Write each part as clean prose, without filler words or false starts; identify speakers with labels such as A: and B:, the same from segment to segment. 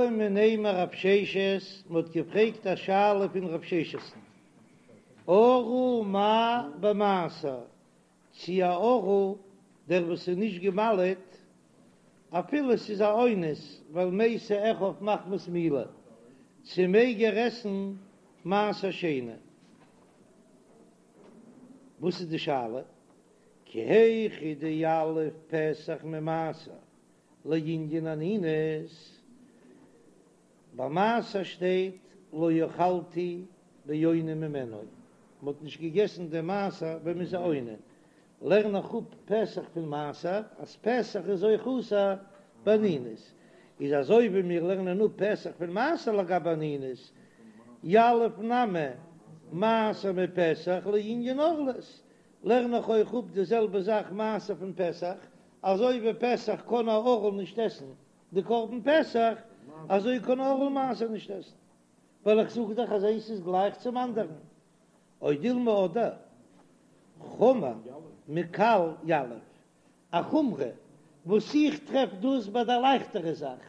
A: בעו מיניה מרב ששת, מען האט געפרעגט א שאלה פון רב ששת'ן, ערל מהו במעשר, צי א ערל, דער וואס איז נישט געמל'עט, אפילו ס'איז א אונס ווייל מתו אחיו מחמת מילה, צי מעג ער עסן מעשר שני? וואס איז די שאלה? כי היכי דיליף פסח ממעשר לענין אנינות, ביי מעשר שטייט לא אכלתי באוני ממנו, מען האט נישט געגעסן דעם מעשר ווען מען איז א אונן, לערן איך אפ פסח פון מעשר אז פסח איז אויך אסור באנינות, איז אזוי ווי מיר לערנען אפ פסח פון מעשר לגבי אנינות, יליף נמי מעשר מפסח לענין ערלות, לערן איך אויך אפ די זעלבע זאך מעשר פון פסח, אזוי ווי פסח קען א ערל נישט עסן די קרבן פסח, אזוי קען א ערל מעשר נישט עסן, ווייל איך זאג דאך אז איינס איז גלייך צום אנדערן. או דילמא אדער חמור מקל יליף, א חומרא וואס איך טרעף דאס ביי די לייכטערע זאך,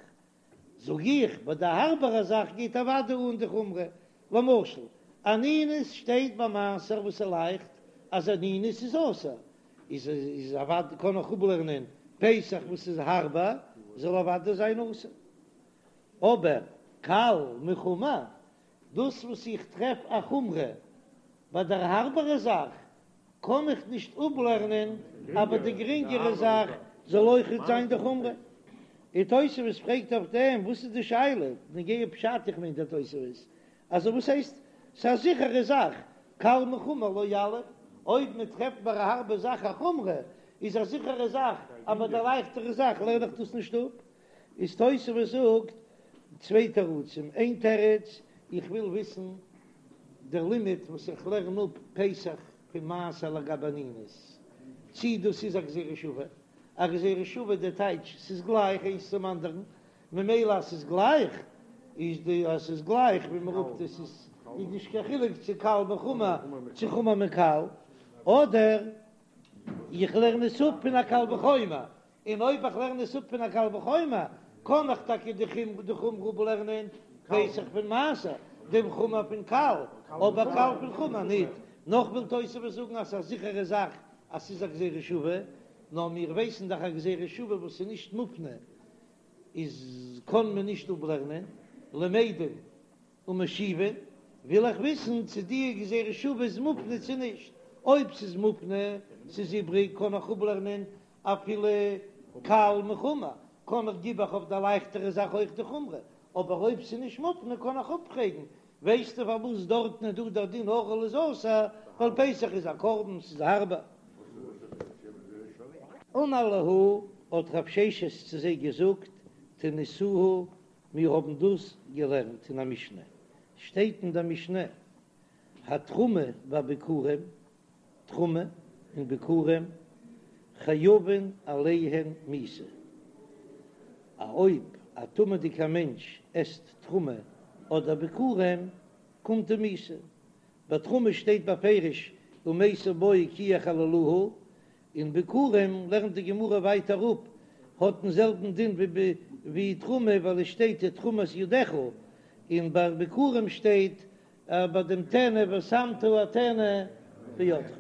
A: זאג איך ביי די הארבערע זאך גייט אוודאי אן די חומרא, למשל אנינות שטייט ביי מעשר וואס איז לייכט אז אנינות איז אסור, איז איז אוודאי קען איך אפלערנען פסח וואס איז הארבער זאל אוודאי זיין אסור, אבער קל מחמור דאס וואס איך טרעף א חומרא ביי דער הארבערע זאך, קען איך נישט אפלערנען אז ביי די גרינגערע זאך זאל אויכעט זיין די חומרא. און תוספות פרעגט אויף דעם, וואס איז די שאלה נוגע פשט, איך מיין דער תוספות, אז וואס הייסט ס'איז א זיכערע זאך, קל מחמור לא יליף, אויב מען טרעפט ביי א הארבע זאך א חומרא, איז א זיכערע זאך אז ביי די לייכטערע זאך לערן איך דאס נישט אפ. איז תוספות זאגט צוויי תירוצים, איין תירוץ, איך וויל וויסן דער לימוד וואס איך לערן אפ פסח פון מעשר לגבי אנינות, צי דאס איז א גזירה שווה, א גזירה שווה די טייטש ס'איז גלייך איינס צום אנדערן, ממילא אז ס'איז גלייך איז די אז ס'איז גלייך ווי מ'רופט עס איז איז נישט קיין חילוק צו קל מחמור צו חמור מקל, אדער איך לערן עס אפ פון א קל וחומר, און אויב איך לערן עס אפ פון א קל וחומר, קען איך טאקע די חומרא אפלערנען פסח פון מעשר, דעם חמור פון קל, אבער קל פון חמור ניט. נאך וויל תוספות זאגן אז ס'איז א זיכערע זאך אז ס'איז א גזירה שווה, נאר מיר ווייסן דאך א גזירה שווה וואס איז נישט מופנה איז קען מען נישט אפלערנען, למדין ומשיבין, וויל איך וויסן צו די גזירה שווה איז מופנה צו נישט, אויב ס'איז מופנה, ס'איז איבריג, קען איך אפלערנען אפילו קל מחמור, קען איך גיב איך אויף די לייכטערע זאך אויך די חומרא, אבער אויב ס'איז נישט מופנה קען איך אפפרעגן, ווייסטו פארוואס דארטן איז דא דער דין ערל איז אסור, ווייל פסח איז א קרבן, ס'איז הארבער. אמר להו, האט רב ששת צו זיי געזאגט, תניתוה, מיר האבן דאס געלערנט אין א משנה, שטייט אין דער משנה, התרומה והביכורים, תרומה און ביכורים, חייבין עליהן מיתה, א אויב א טמא'דיגער מענטש עסט תרומה אדער ביכורים, קומט אים מיתה. ביי תרומה שטייט בפירוש ומתו בו כי יחללוה, און ביכורים לערנט די גמרא ווייטער אפ, האט דעם זעלבן דין ווי תרומה ווייל עס שטייט תרומת ידך, און ביי ביכורים שטייט ביי דעם טנא ושמת הטנא בידך,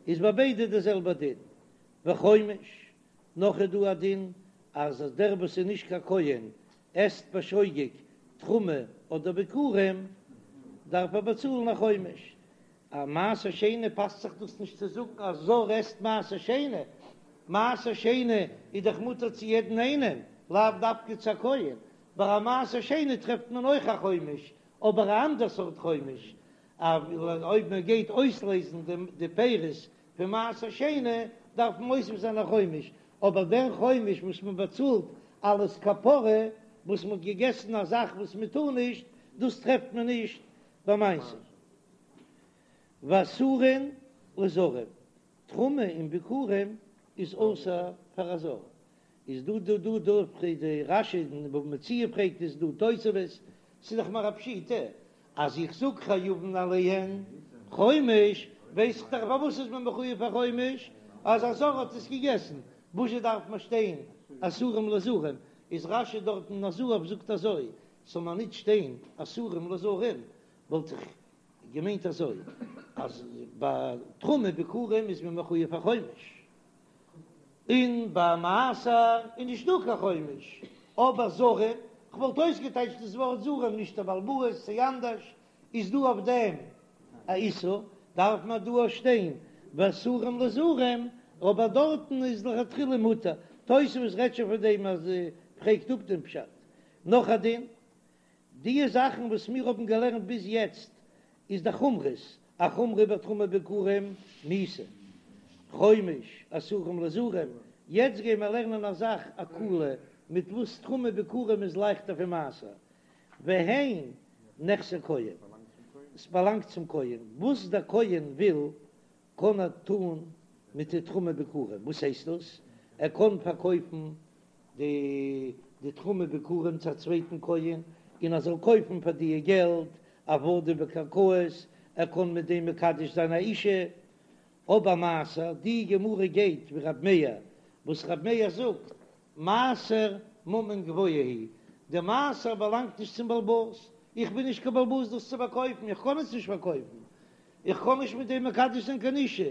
A: איז ביי ביידע די זעלבע דין. וחומש, נאך איז דא א דין אז דער וואס איז נישט קיין כהן עסט בשוגג תרומה אדער ביכורים דארף ער באצאלן א חומש. א מעשר שני פאסט זיך דאס נישט צו זאגן א זר עסט מעשר שני, מעשר שני איז דאך מותר צו יעדן איינעם, לאו דווקא צו א כהן, ביי א מעשר שני טרעפט מען אויך א חומש, אבער א אנדער סארט חומש, אויב מען גייט אויסלעזן די פירות פון מעשר שני דארף מען מוסיף זיין א חומש, אבער דער חומש וואס מען באצאלט אלס כפרה וואס מען האט געגעסן א זאך וואס מען טאר נישט, דאס טרעפט מען נישט ביי מעשר. ואסורין לזרים, תרומה און ביכורים איז אסור פאר א זר, איז דא דא דא דא פרעגט די רש"י אין בבא מציעא פרעגט עס דא תוספות, ס'איז דאך מיר א פשיטא אז איך זאג חייבין עליהן חומש, ווייס איך דאך פארוואס איז מען מחויב פאר חומש, אז א זר האט עס געגעסן, וואזשע דארף מען שטיין אסורים לזרים? איז רש"י דארט אין הזהב זאגט אזוי, ס'זאל מיר ניט שטיין אסורים לזרים, וואלט איך געמיינט אזוי, אז ביי תרומה ביכורים איז מען מחויב א חומש, און ביי מעשר איז נישט דא קיין חומש, אבער זרים, כ'וואלט אויסגעטייטשט דאס ווארט זרים נישט א בעל הבית צי אנדערש, איז דא אויף דעם א איסור, דארף מען דא אויך שטיין ואסורים לזרים, אבער דארטן איז לכתחילה מותר, תוספות רעדט שוין פון דעם אז פרעגט אפ דעם פשט. נאך א דין, די זאכן וואס מיר האבן געלערנט ביז יעצט איז די חומרות, א חומרא ביי תרומה ביכורים מיתה, חומש, אסורים לזרים, יעצט גייען מיר לערנען א זאך א קולא מיט וואס תרומה ביכורים איז לייכטער פון מעשר, והן נכסי כהן, עס באלאנגט צום כהן, וואס דער כהן וויל קען ער טון מיט די תרומה ביכורים, וואס הייסט דאס? ער קען פארקויפן די די תרומה ביכורים צו א צווייטן כהן, און ער זאל קויפן פאר די געלט עבדים וקרקעות, ער קען מיט דעם מקדש זיין א אישה. אבער מעשר, די גמרא גייט ווי רב מאיר, וואס רב מאיר זאגט, מעשר ממון גבוה הוא, די מעשר באלאנגט נישט צום בעל הבית, איך בין נישט קיין בעל הבית דאס צו פארקויפן, איך קען עס נישט פארקויפן, איך קען נישט מיט דעם מקדש זיין קיין אישה,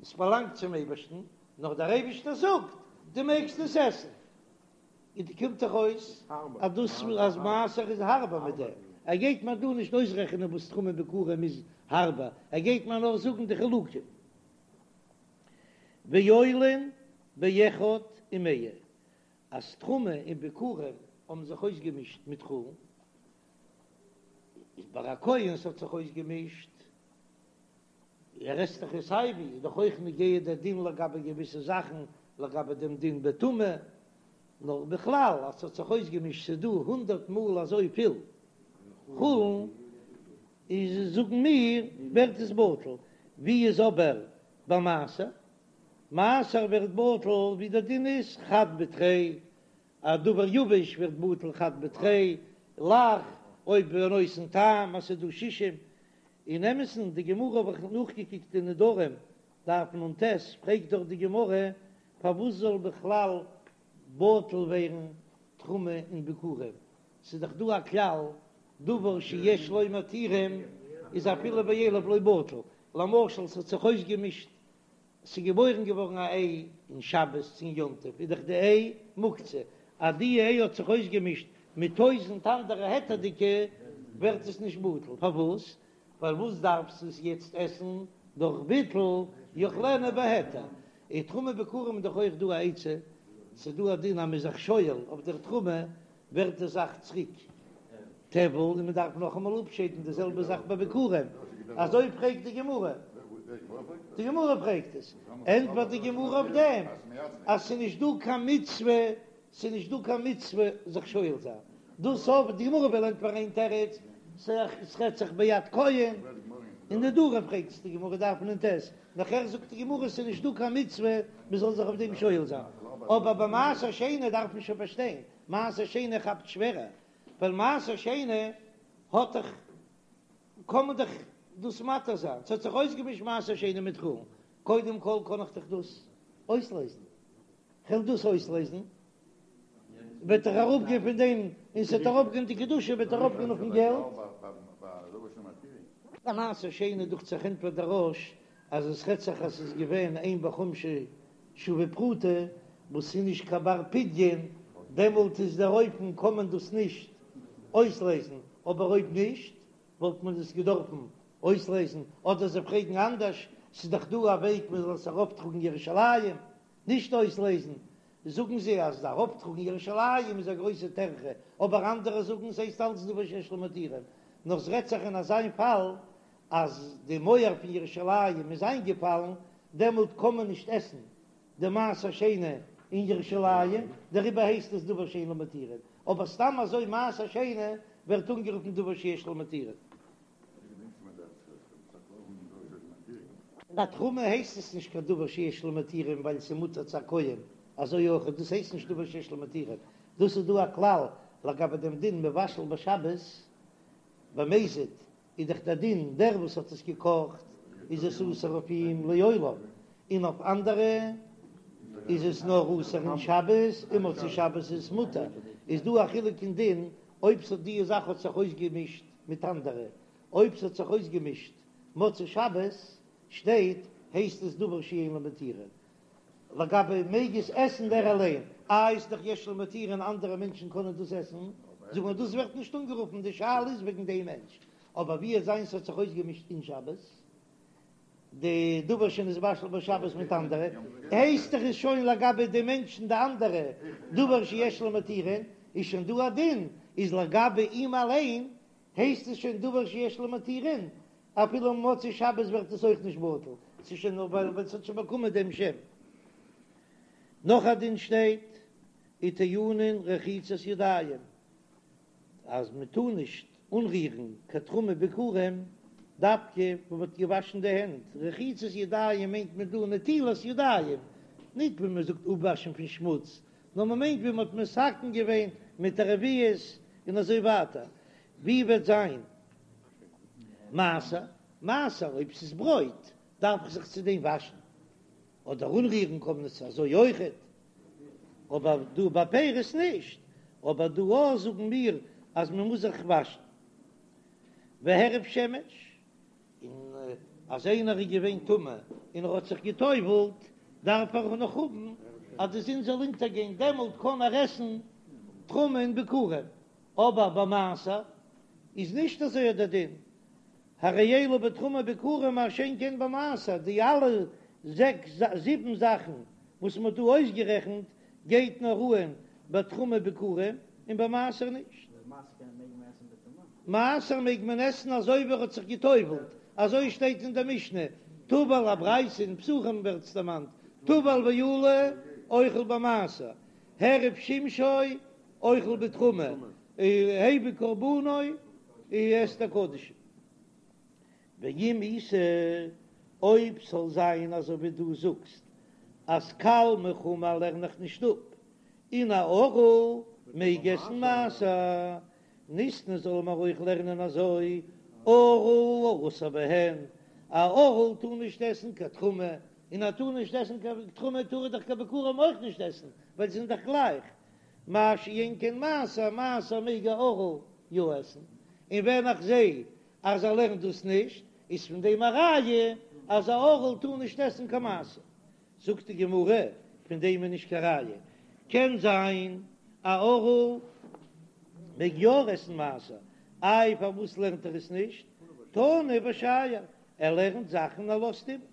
A: עס באלאנגט צום אייבערשטן, נאר דער אייבערשטער זאגט, דו מעגסט עס עסן. און דא קומט דאך אויס אז דאס אז מעשר איז הארבער מיט דעם, ער גייט מיר דא נישט אויסרעכענען וואס תרומה ביכורים איז הארבער, ער גייט מיר נאר זאגן די חילוקים. ועולין באחד ומאה, אז תרומה און ביכורים האבן זיך אויסגעמישט מיט חולין, איז ביי א כהן ס'האט זיך אויסגעמישט, ער עסט דאך עס סייווי, איז דאך אויך נוגע דער דין לגבי געוויסע זאכן, לגבי דעם דין בטומאה, נאר בכלל אז ס'האט זיך אויסגעמישט ס'איז דא הונדערט מאל אזוי פיל חולין, איז זאגן מיר ווערט עס בטל, ווי איז אבער ביי מעשר? מעשר ווערט בטל ווי דער דין איז חד בתרי, א דבר יבש ווערט בטל חד בתרי, לח, אויב בנותן טעם אז ס'איז דא שישים, אין אמת'ן די גמרא האב איך נאכגעקוקט אין נדרים דף נ"ט, פרעגט דאך די גמרא פארוואס זאל בכלל בטל ווערן תרומה און ביכורים, ס'איז דאך דא א כלל דבר שיש לו מתירים איז אפילו באלף לא בטל, למשל ס'האט זיך אויסגעמישט ס'איז געבוירן געווארן א איי אין שבת צו אין יום טוב איז דאך די איי מוקצה, אז די איי האט זיך אויסגעמישט מיט טויזענט אנדערע היתר'דיגע ווערט עס נישט בטל, פארוואס? ווייל וואס דארפסטו עס יעצט עסן דורך ביטול יאכלנה בהיתר, און תרומה ביכורים איז דאך אויך דא א עצה, ס'איז דא א דין אז מ'איז זיך שואל אויף דער תרומה ווערט די זאך צוריק טבל און מען דארף נאכאמאל אפשיידן די זעלבע זאך ביי ביכורים, אזוי פרעגט די גמרא, די גמרא פרעגט עס, ענטפערט די גמרא אויף דעם אז ס'איז נישט דא קיין מצוה, ס'איז נישט דא קיין מצוה זיך שואל זיין, דאס אויף די גמרא וויל ענטפערן איין תירוץ, ס'רעדט זיך ביד כהן, אין נדרים פרעגט עס די גמרא דף נ"ט, נאכער זאגט די גמרא ס'איז נישט דא קיין מצוה מען זאל זיך אויף דעם שואל זיין, אבער ביי מעשר שני דארף מען שוין פארשטיין, מעשר שני כאפט שווערער, ווייל מעשר שני האט דאך, קען מען דאך דאס מתיר זיין, ס'האט זיך אויסגעמישט מעשר שני מיט חולין, קודם כל קען איך דאך דאס אויסלייזן, כ'וועל דאס אויסלייזן, וועט דאך אראפגיין פון דעם, און ס'וועט אראפגיין די קדושה וועט אראפגיין אויפן געלט. ביי מעשר שני דוכט זיך ענטפערט דער רא"ש אז עס רעדט זיך אז ס'איז געווען אין בחומשו שווה פרוטה וואס איז נישט קיין בר פדיון, דעמאלט איז דער אופן קען מען דאס נישט אויסלייזן, אבער אויב נישט וואלט מען עס געדארפן אויסלייזן, אדער זיי פרעגן אנדערש, ס'איז דאך דא א וועג מען זאל עס ארויפטראגן ירושלים, נישט אויסלייזן, זאגן זיי אז ארויפטראגן ירושלים איז א גרויסע טרחה, אבער אנדערע זאגן ס'הייסט אלץ דבר שיש לו מתירים, נאר ס'רעדט זיך אין אזיין פאל אז די מויער פון ירושלים איז איינגעפאלן, דעמאלט קען מען נישט עסן די מעשר שני אין ירושלים, דעריבער הייסט עס דבר שאין לו מתירין, אבער סתם אזוי מעשר שני ווערט אנגערופן דבר שיש לו מתירין. ביי תרומה הייסט עס נישט קיין דבר שיש לו מתירין ווייל ס'איז מותר צו א כהן, אזוי אויך דאס הייסט נישט דבר שיש לו מתירין, דאס איז דא א כלל לגבי דעם דין מבשל בשבת במזיד, איז דאך דער דין דער וואס האט עס געקאכט איז עס אסור אויף אים לעולם, און אויף אנדערע. איז עס נאר אסור אין שבת און מוצאי שבת איז עס מותר, איז דא א חילוק אין דין אויב ס'האט די זאך האט זיך אויסגעמישט מיט אנדערע, אויב ס'האט זיך אויסגעמישט מוצאי שבת שטייט הייסט עס דבר שאין לו מתירין, לגבי מעג עס עסן דער אליין, איי איז דאך יש לו מתירין אנדערע מענטשן קענען דאס עסן, זאג מיר דאס ווערט נישט אנגערופן די שאלה איז וועגן דעם מענטש, אבער ווי עס זיין ס'האט זיך אויסגעמישט אין שבת די דבר שנתבשל בשבת מיט אנדערע, הייסט דאך איז שוין לגבי די מענטשן די אנדערע דבר שיש לו מתירין, איז שוין דא א דין, איז לגבי אים אליין הייסט עס שוין דבר שיש לו מתירין, אפילו מוצאי שבת ווערט עס אויך נישט בטל, ס'איז שוין נאר ווייל ס'האט שוין באקומען דעם שם. נאך א דין שטייט, וטעונין רחיצת ידיים, אז מען טאר נישט אנרירן קיין תרומה ביכורים דווקא ווען מען האט געוואשן די הענט, רחיצת ידיים מיינט מען דא נטילת ידיים, ניט ווי מען זאגט אפוואשן פון שמוץ, נאר מען מיינט ווי מען האט מתקן געווען מיט א רביעית און אזוי ווייטער, ווי וועט זיין מעשר? מעשר אויב ס'איז ברויט דארף איך זיך צו דעם וואשן, אדער אנרירן קען מען עס אזוי אויכעט, אבער דא ביי פירות נישט, אבער דא אויך זאגן מיר אז מען מוז זיך וואשן. והערב שמש, און אז איינער איז געווען טמא און ער האט זיך גע'טובל'ט, דארף ער נאך האבן אז די זון זאל אונטערגיין, דעמאלט קען ער עסן תרומה און ביכורים, אבער ביי מעשר איז נישט אזוי דער דין, הרי אלו בתרומה ביכורים מה שאין כן במעשר, די אלע זעקס זיבן זאכן וואס מען האט דא אויסגערעכנט גייט נאר אהן ביי תרומה ביכורים און ביי מעשר נישט. מעשר מעג מען עסן אזוי ווי ער האט זיך גע'טובל'ט, אזוי שטייט אין דער משנה, טבל א ברייתא אין פסחים ווערט עס דערמאנט, טבל ועלה אוכל במעשר, העריב שמשו אוכל בתרומה, הביא קרבנו עסט ער קדשים. ואם איתא, אויב ס'זאל זיין אזוי ווי דו זאגסט אז קל מחמור לערן איך נישט אפ, און א ערל מעג עסן מעשר, ניתני זאל מען אויך לערנען אזוי, ערל אסור בהן, א ערל טאר נישט עסן קיין תרומה, און ער טאר נישט עסן קיין תרומה טאר ער דאך קיין ביכורים אויך נישט עסן, ווייל זיי זענען דאך גלייך, מה שאין כן מעשר, מעשר מעג א ערל יא עסן, און ווען איך זע אז ער לערנט דאס נישט, איז פון דעם א ראיה אז א ערל טאר נישט עסן קיין מעשר. זאגט די גמרא, פון דעם איז נישט קיין ראיה, קען זיין א ערל מעג יא עסן מעשר, איי פארוואס לערנט ער עס נישט? תני ושייר, ער לערנט זאכן ער לאזט איבער.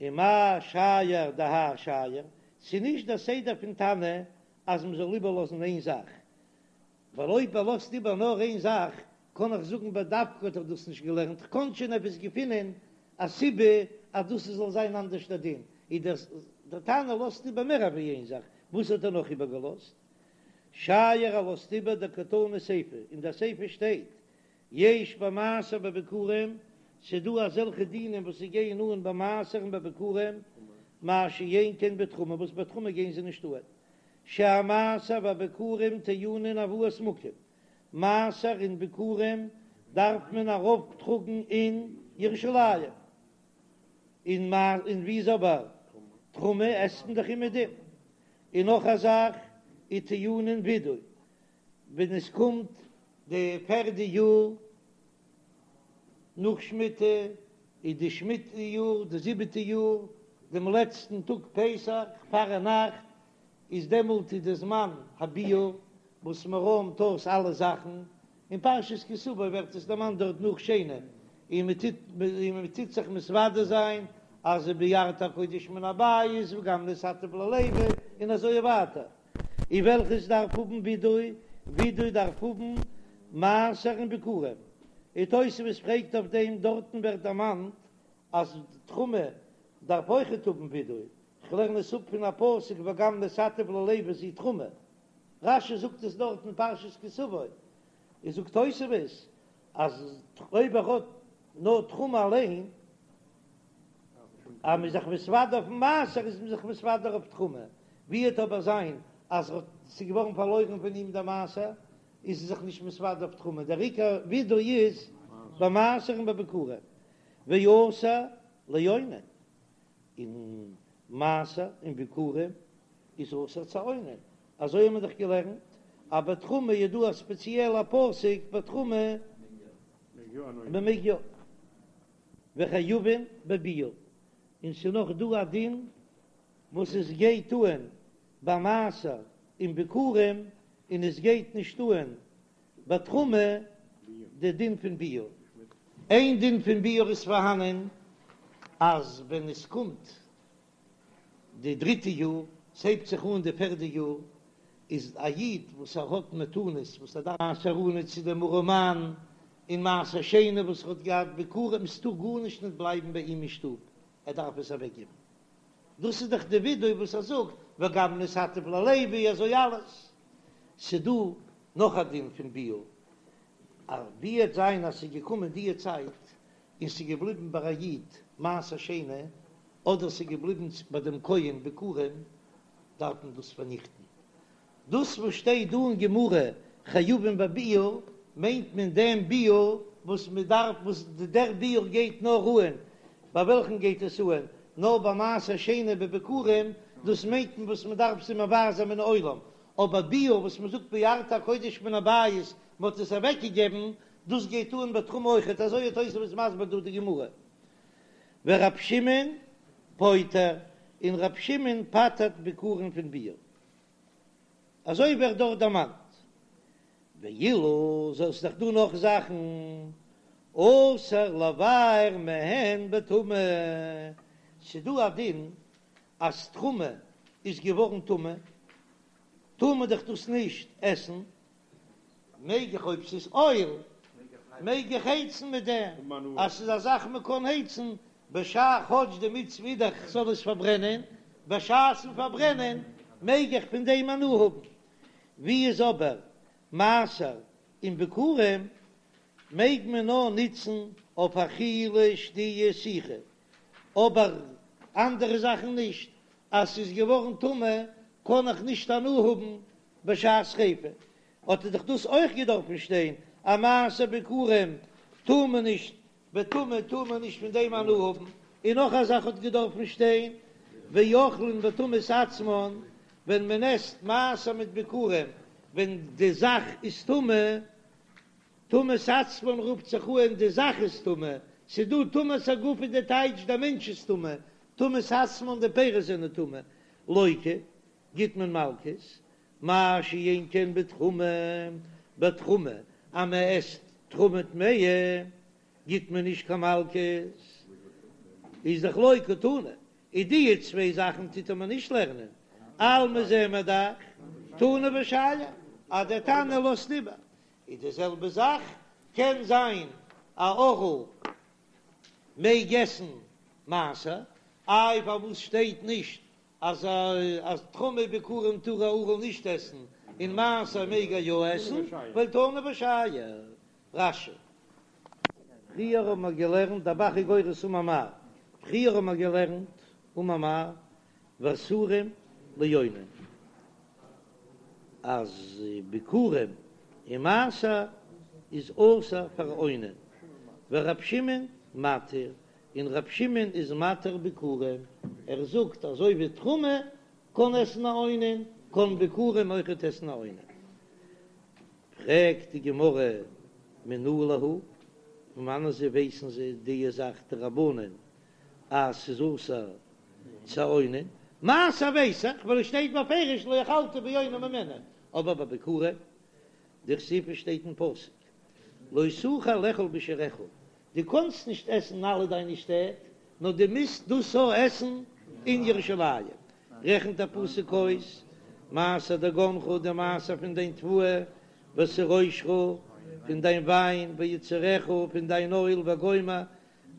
A: ומאי שייר דהאי שייר, ס'איז נישט דער סדר פון תנא אז מ'זאל איבערלאזן איין זאך, ווייל אויב ער לאזט איבער נאר איין זאך, קען איך זאגן בדווקא האט ער דאס נישט געלערנט, כ'קען שוין עפעס געפינען א סיבה אז דאס זאל זיין אנדערש דער דין, איז דער דער תנא לאזט איבער מער אווי איין זאך, וואס האט ער נאך איבערגעלאזט? שייר ער לאזט איבער דקתני סיפא, אין דער סיפא שטייט יש במעשר ובביכורים, ס'דא אזעלכע דינים וואס זיי גייען אן ביי מעשר און ביי ביכורים, מה שאין כן בתרומה, וואס ביי תרומה גייען זיי נישט אן, שהמעשר והביכורים טעונין הבאת מקום, מעשר און ביכורים דארף מען ארויפטראגן אין ירושלים, און און ווי איז אבער תרומה עסט מען דאך אומעדום, און נאך א זאך וטעונין ווידוי, ווען עס קומט די פערדע יאר נאך שמיטה, איז די שמיטה יאר די זיבעטע יאר, דעם לעצטן טאג פסח פארנאכט, איז דעמאלט איז די זמן הביעור וואס מען רוימט אויס אלע זאכן, אין פרשת כי תבוא ווערט עס דערמאנט דארט נאך שני, און מען טוט און מען טוט זיך מתוודה זיין אז ביערתי הקודש מן הבית וגם נתתיו ללוי און אזוי ווייטער. און וועלכעס דארף האבן ווידוי, ווידוי דארף האבן מעשר און ביכורים, און תוספות פרעגט אויף דעם, דארטן ווערט דערמאנט אז תרומה דארף אויכעט האבן ווידוי, כ'לערן עס אפ פון א פסוק וגם נתתיו ללוי זו תרומה, רש"י זאגט עס דארט אין פרשת כי תבוא, און זאגט תוספות אז אויב ער האט נאר תרומה אליין, אז מ'איז זיך מתוודה אויפן מעשר איז מען זיך מתוודה אויף תרומה, ווי וועט אבער זיין אז ס'איז געווארן פארלוירן פון אים דער מעשר, איז ער זיך נישט מתוודה אויף תרומה, דער עיקר ווידוי איז ביי מעשר און ביי ביכורים, ואסור לאונן, און. מעשר און ביכורים איז אסור צו אונן, אזוי האבן מיר דאך געלערנט אז ביי תרומה איז דא א ספעציעלע פסוק ביי תרומה מען מעג יא, וחייבין בביעור, און ס'איז נאך דא א דין וואס עס גייט אהן ביי מעשר און ביכורים און עס גייט נישט אהן ביי תרומה די דין פון ביעור. איין דין פון ביעור איז פארהאנען אז ווען עס קומט די דריטע יאר, ס'הייבט זיך אן די פערדע יאר, איז א איד וואס ער האט מתנות וואס ער דארף מעשר עני צו דעם ארעמאן און מעשר שני וואס ער האט געהאט ביכורים, ס'טאר גארנישט נישט בלייבן ביי אים אין שטוב, ער דארף עס אוועקגעבן. דאס איז דאך די ווידוי וואס ער זאגט וגם נתתיו ללוי אזוי אלעס. ס'דא נאך א דין פון ביעור, אז ווי וועט זיין אז ס'איז געקומען די צייט און ס'איז געבליבן ביי א איד מעשר שני, אדער ס'איז געבליבן ביי דעם כהן ביכורים, דארף מען דאס פארניכטן. דאס וואס שטייט דא אין גמרא חייבין בביעור, מיינט מען דעם ביעור וואס מען דארף, וואס דער ביעור גייט נאר אהן, ביי וועלכן גייט עס אהן? נאר ביי מעשר שני וביכורים, דאס מיינט מען וואס מען דארף זיי מבער זיין מן העולם, אבער ביעור וואס מען זאגט ביערת הקודש מן הבית, מען האט עס אוועקגעגעבן, דאס גייט אהן ביי תרומה אויכעט, אזוי האט תוספות מסביר דא די גמרא. ורב שמעון פוטר, און רב שמעון פטר'ט ביכורים פון ביעור. אזוי ווערט דארט דערמאנט. ואילו ס'איז דאך דא נאך זאכן, אסור לבער מהן בטומאה, ס'דא א דין אז תרומה איז געווארן טמא, טאר מען דאך דאס נישט עסן, מעג איך אויב ס'איז אויל מעג איך הייצן מיט דעם, אז ס'איז א זאך מ'קען הייצן בשעה כאטש די מצוה איז דאך כ'זאל עס פארברענען, בשעת'ן פארברענען מעג איך פון דעם הנאה האבן, ווי איז אבער מעשר און ביכורים מעג מען נאר נוצן אויף אכילה שתיה סיכה, אבער אנדערע זאכן נישט, אז ס'איז געווארן טמא קען איך נישט הנאה האבן בשעת שריפה, האט דאך דאס אויך געדארפן שטיין אז מעשר ביכורים טאר מען נישט בטומאה טאר מען נישט פון דעם הנאה האבן, און נאך א זאך האט געדארפן שטיין ואוכלין בטומאת עצמן, ווען מען עסט מעשר מיט ביכורים ווען די זאך איז טמא, טומאת עצמן רופט זיך אן די זאך איז טמא, ס'איז דא טומאת הגוף איז די טייטש דער מענטש איז טמא, טומאת עצמן די פירות זענען טמא, לוקה, גיט מען מלקות, מה שאין כן בתרומה, בתרומה אז מען עסט תרומה טמאה גיט מען נישט קיין מלקות, איז דאך לא קתני, איז די צוויי זאכן טוט ער מיר נישט לערנען, אלמא זעען מיר דאך תנא ושייר אז דער תנא לאזט איבער, איז די זעלבע זאך קען זיין א ערל מעג עסן מעשר, איי פארוואס שטייט נישט אז אז תרומה ביכורים טאר א ערל נישט עסן און מעשר מעג ער יא עסן, ווייל תנא ושייר. רש"י. פריער האבן מיר געלערנט דער ב"ח איז גורס אמר מר, פריער האבן מיר געלערנט אמר מר ואסורים לאונן אז ביכורים און מעשר איז אסור פאר אונן, ורב שמעון מתיר, און ר' שמעון איז מתיר ביכורים, ער זאגט אזוי ווי תרומה קען עסן א אונן, קען ביכורים אויכעט עסן א אונן. פרעגט די גמרא מנא להו, פון וואנען זיי ווייסן זיי די זאך די רבנן אז ס'איז אסור צו אונן, מעשר ווייס איך ווייל עס שטייט בפירוש לא אכלת באוני ממנו, אבער ביי ביכורים דכתיב שטייט אין פסוק לא תוכל לאכול בשעריך, דו קאנסט נישט עסן אין אלע דיינע שטעט, נאר דו מוזט דאס אויך עסן אין ירושלים. רעכנט דער פסוק אויס, מעשר דגנך, די מעשר פון דיין תבואה, ותירושך, פון דיין וויין, ויצהרך, פון דיין אויל, וגומר,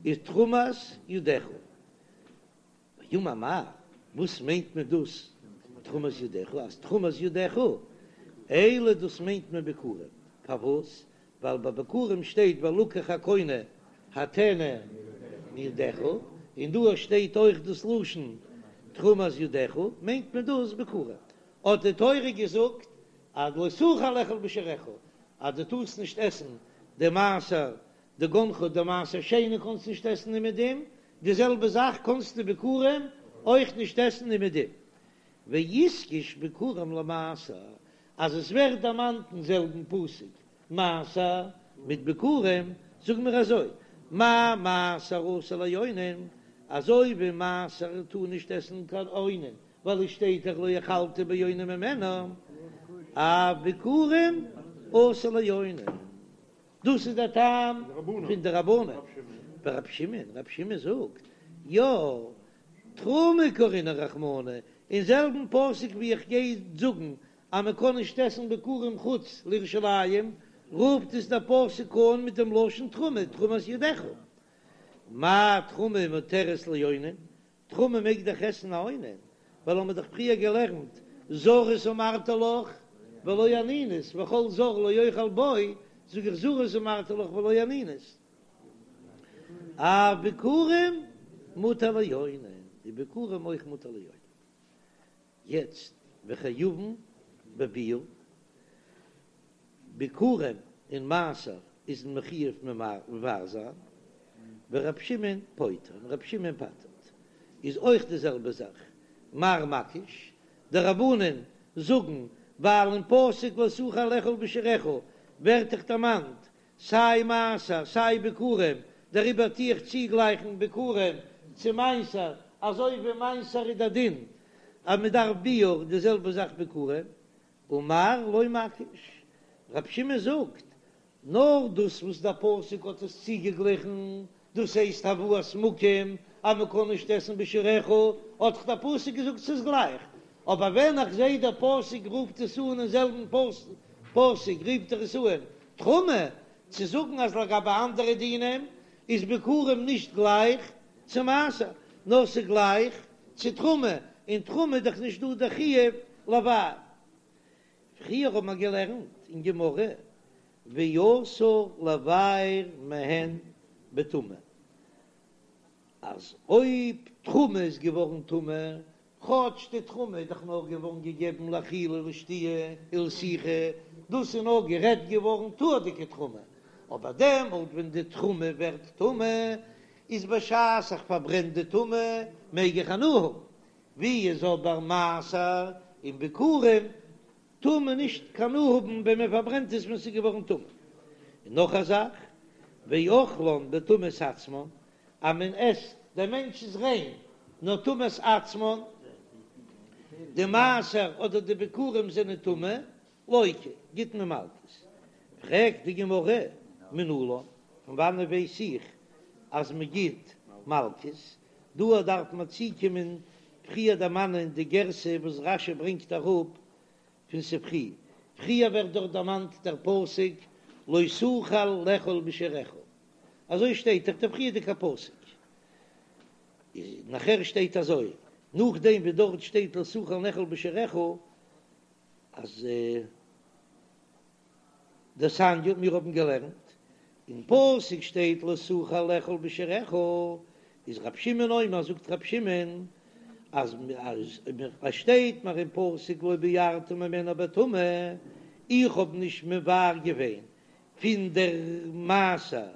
A: ותרומת ידך. ואמר מר, וואס מיינט מען דאס תרומת ידך? אז תרומת ידך, אלו דאס מיינט מען ביכורים, פארוואס? ווייל ביי ביכורים שטייט ולקח הקונה הטנא מידך, און דא שטייט אויך דאס לשון תרומת ידך, מיינט מען דאס ביכורים. האט די תורה געזאגט אז לא תוכל לאכול בשעריך, אז דו טארסט נישט עסן די מעשר דגנך די מעשר שני קאנסט נישט עסן אומעדום, די זעלבע זאך קאנסטו ביכורים. אויך נישט עסן אומעדום. ואיתקש ביכורים למעשר, אז עס ווערט דערמאנט אין זעלבן פסוק מעשר מיט ביכורים, זאג מיר אזוי, מה מעשר אסור לאונן, אזוי ווי מעשר טאר נישט עסן קיין אונן, ווייל עס שטייט דאך לא אכלת באוני ממנו, אף ביכורים אסור לאונן. דאס איז דער טעם פון די רבנן. ורב שמעון, רב שמעון זאגט, יא, תרומה קרינהו רחמנא, אין זעלבן פסוק ווי איך גיי זאגן אז מען קען נישט עסן ביכורים חוץ לירושלים, רופט עס דער פסוק אן מיט דעם לשון תרומה, תרומת ידיך. מה תרומה מותרת לאונן, תרומה מעג דאך עסן א אונן, ווייל האמיר דאך פריער געלערנט זרות אמרתי לך ולא אנינות, וכל זר לא יאכל בו, זאג איך זרות אמרתי לך ולא אנינות. אף ביכורים מותר לאונן, די ביכורים אויך מותר לאונן. יעצט וחייבין בביעור, ביכורים און מעשר איז מען מחויב מבער זיין, ורב שמעון פוטר, און רב שמעון פטר'ט, איז אויך די זעלבע זאך, מר מקיש, די רבנן זאגן ווייל אין פסוק לא תוכל לאכול בשעריך ווערט דאך דערמאנט סיי מעשר סיי ביכורים, דעריבער טו איך צוגלייכן ביכורים צו מעשר, אזוי ווי מעשר איז דער דין אז מען דארף ביעור, די זעלבע זאך ביכורים, ומר לא מקיש, רב שמעון זאגט, נאר דאס וואס דער פסוק האט עס צוגעגליכן, דאס הייסט הבאת מקום אז מען קען נישט עסן בשעריך, האט דאך דער פסוק געזאגט ס'איז גלייך, אבער ווען איך זעה דער פסוק רופט עס אן אין זעלבן פסוק רופט ער עס אן תרומה, צו זאגן אז לגבי אנדערע דינים איז ביכורים נישט גלייך צו מעשר, נאר ס'איז גלייך צו תרומה, אין תרומה איז דאך נישט דא דער חיוב לבער. פריער האט מען געלערנט אין גמרא ואסור לבער מהן בטומאה, אז אויב תרומה איז געווארן טמא, כאטש די תרומה איז דאך נאר געווארן געגעבן לאכילה ולשתיה ולסיכה, דאס איז נאר גערעדט געווארן טהור'דיגע תרומה, אבער דעמאלט ווען די תרומה ווערט טמא, איז בשעת איך פארברען די טומאה מעג איך הנאה האבן, ווי איז אבער מעשר און ביכורים טאר מען נישט קיין הנאה האבן ווען מען פארברענט עס ווען ס'איז געווארן טמא. און נאך א זאך, ואוכלן בטומאת עצמן, אז מען עסט, דער מענטש איז ריין, נאר טומאת עצמן, די מעשר אדער די ביכורים זענען טמא, לוקה, גיט מען מלקות. פרעגט די גמרא, מנלן, פון וואנעט ווייס איך אז מען גיט מלקות? דא דארף מען צוקומען פריער דערמאנען די גירסא וואס רש"י ברענגט אראפ פון ספרי, פריער ווערט דארט דערמאנט דער פסוק לא תוכל לאכול בשעריך, אזוי שטייט דאך דער פריערדיגע פסוק, איז נאכער שטייט אזוי, נאכדעם ווי דארט שטייט לא תוכל לאכול בשעריך, אז. דתניא, מיר האבן געלערנט, אין פסוק שטייט לא תוכל לאכול בשעריך, איז רב שמעון אומר, זאגט רב שמעון, אז עס שטייט מיר אין פסוק לא בערת ממנה בטומאה, איך האב נישט מבער געווען פון דער מעשר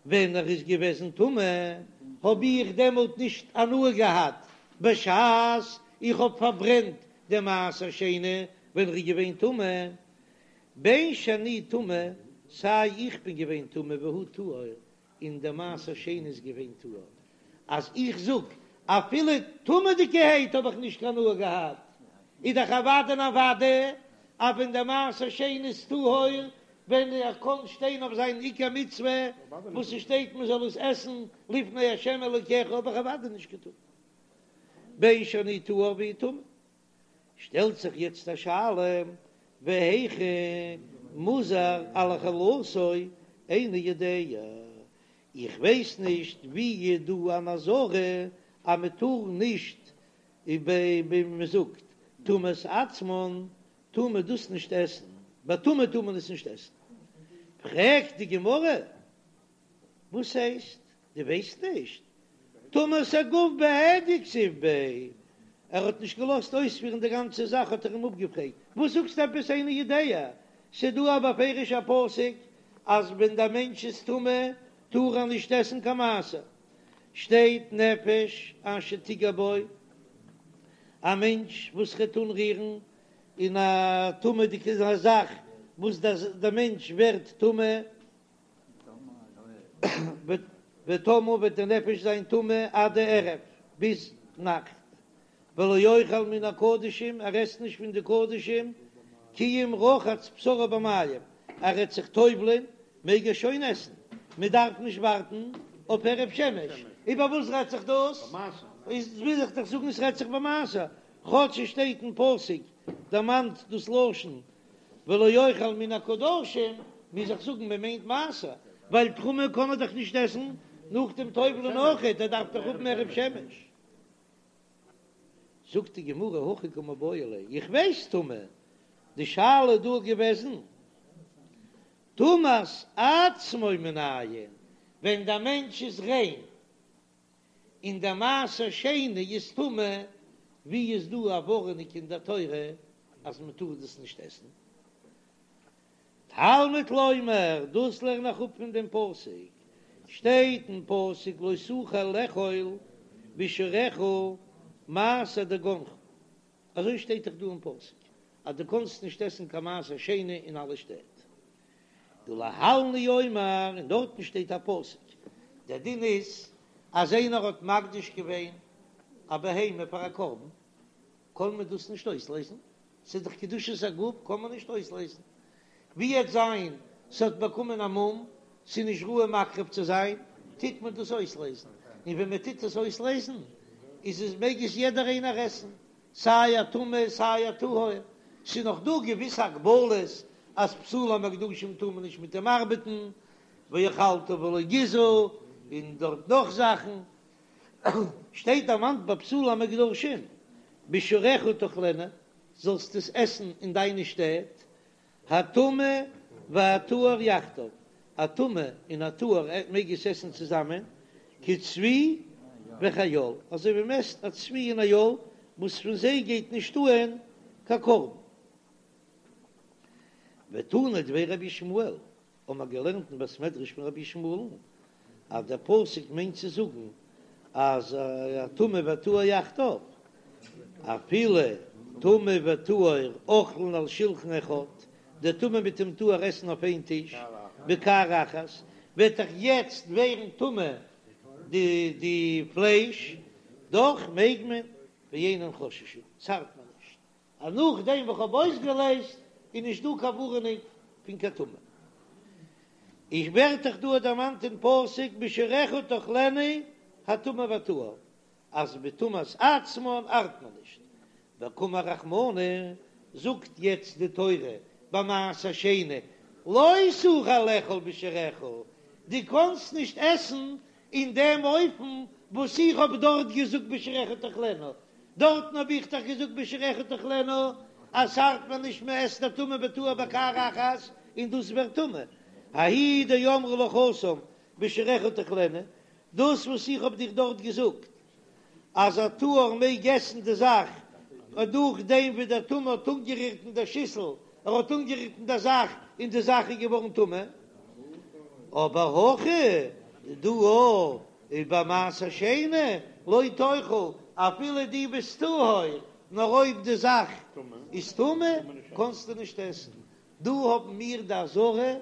A: ווען ער איז געוועזן טמא, האב איך דעמאלט נישט הנאה געהאט בשעת איך האב פארברענט דעם מעשר שני ווען ער איז געווען טמא, בין שאני טמא, סיי איך בין געווען טמא והוא טהור, און דער מעשר שני איז געווען טהור, אז איך זאג אפילו טמא'דיגערהייט האב איך נישט קיין הנאה געהאט, איז דאך אוודאי און אוודאי אז ווען דער מעשר שני איז טהור, ווען ער קען שטיין אויף זיין עיקר מצוה וואס עס שטייט מען זאל עס עסן לפני ה' אלוקיך האב איך אוודאי נישט געטון בין שאני טהור והוא טמא. שטעלט זיך יעצט א שאלה, והיכא מוזהר על אכילתו איני יודע, איך ווייס נישט ווי איז דא אן אזהרה אז מען טאר נישט, ווי מען זאגט טומאת עצמן טאר מען דאס נישט עסן, בטומאה טאר מען עס נישט עסן, פרעגט די גמרא, וואס הייסט דו ווייסט נישט? טומאת הגוף בהדיא כתיב ביה, ער האט נישט געלאזט אויספירן די גאנצע זאך האט ער אים אפגעפרעגט, וואס זאגסטו עפעס איני יודע, ס'דא א בפירוש'ע פסוק אז ווען דער מענטש איז טמא טאר ער נישט עסן קיין מעשר, שטייט נפש אשר תגע בו. א מענטש וואס וועט אנרירן אין א טמא'דיגע זאך וואס דער מענטש ווערט טמא, וטמאה וועט די נפש זיין טמא עד הערב, ביז נאכט, ולא יאכל מן הקדשים, ער עסט נישט פון די קדשים, כי אם רחץ בשרו במים, ער וועט זיך טובל'ען, מעג ער שוין עסן, מען דארף נישט ווארטן אויף הערב שמש, איבער וואס רעדט זיך דאס? איז וויל איך דאך זאגן עס רעדט זיך במעשר, כאטש עס שטייט אין פסוק דערמאנט דאס לשון ולא יאכל מן הקדשים, מוז איך זאגן מען מיינט מעשר, ווייל תרומה קען ער דאך נישט עסן נאך דעם טובל'ען אויכעט, ער דארף דאך האבן הערב שמש. זאגט די גמרא הכי קא מיבעיא ליה, איך ווייס טומאה, די שאלה איז דא געוועזן טומאת עצמו מנין, ווען דער מענטש איז ריין און דער מעשר שני איז טמא, ווי איז דא א ווארענונג אין דער תורה אז מען טאר דאס נישט עסן? תלמוד לומר, דאס לערן איך אפ פון דעם פסוק, שטייט אין פסוק לא תוכל לאכול בשעריך מעשר דגנך, אזוי שטייט דאך דא אין פסוק אז דו קאנסט נישט עסן קיין מעשר שני אין אלע שטעט. ולהלן הוא אומר, און דארטן שטייט א פסוק, דער דין איז אז איינער האט מקדיש געווען א בהמה פאר א קרבן, קען מען דאס נישט אויסלעזן, ס'איז דאך קדושת הגוף קען מען נישט אויסלעזן, ווי וועט זיין ס'האט באקומען א מום, ס'איז נישט ראוי מקריב צו זיין, טוט מען דאס אויסלעזן, און ווען מען טוט עס אויסלעזן איז עס מעג עס יעדער איינער עסן, סיי א טמא סיי א טהור, ס'איז נאך דא געוויסע הגבלות אז פסולי המוקדשים טאר מען נישט מיט דעם ארבעטן, ואכלת ולא גיזה, און דארט נאך זאכן, שטייט דערמאנט ביי פסולי המוקדשים, בשעריך תאכלנה, זאלסט עס עסן אין דיינע שטעט, הטמא והטהור יחדיו, א טמא און א טהור מעג עס עסן צוזאמען, כצבי וכאיל, אזוי ווי מען עסט א צבי און א איל, וואס פון זיי גייט נישט אהן קיין קרבן. ותנא דבי רבי ישמעאל, האבן מיר געלערנט אין בית מדרש פון רבי ישמעאל'ן אז דער פסוק מיינט צו זאגן אז הטמא והטהור יחדיו, אפילו טמא וטהור אוכלין על שלחן אחד, דער טמא מיט דעם טהור עסן אויף איין טיש, בקערה אחת, וועט דאך יעצט ווערן טמא די די פלייש, דאך מעג מען, ואינן חוששין, ס'ארט מען נישט. אז נאכדעם וואס כ'האב אויסגעלעזט איז נישט דא קיין ווארענונג פון קיין טומאה. איז ווערט דאך דא דערמאנט אין פסוק בשעריך תאכלנה הטמא והטהור אז בטומאת עצמן ארט מען נישט. וקאמר רחמנא, זאגט יעצט די תורה ביי מעשר שני לא תוכל לאכול בשעריך, דו קאנסט נישט עסן אין דעם אופן וואס איך האב דארט געזאגט בשעריך תאכלנה, דארטן האב איך דאך געזאגט בשעריך תאכלנה אז ס'ארט מיר נישט מען עסט א טמא וטהור בקערה אחת און דאס ווערט טמא, ההוא דאמרי לך התם בשעריך תאכלנה, דאס וואס איך האב דיך דארט געזאגט אז א טהור מעג עסן די זאך נאכדעם ווי דער טמא האט אנגערירט אין דער שיסל, ער האט אנגערירט אין דער זאך און די זאך איז געווארן טמא, אבער הכא דא איז ביי מעשר שני לא תאכל, אפילו דו ביסט טהור, נאר אויב די זאך איז טמא קענסטו נישט עסן. דא האבן מיר די אזהרה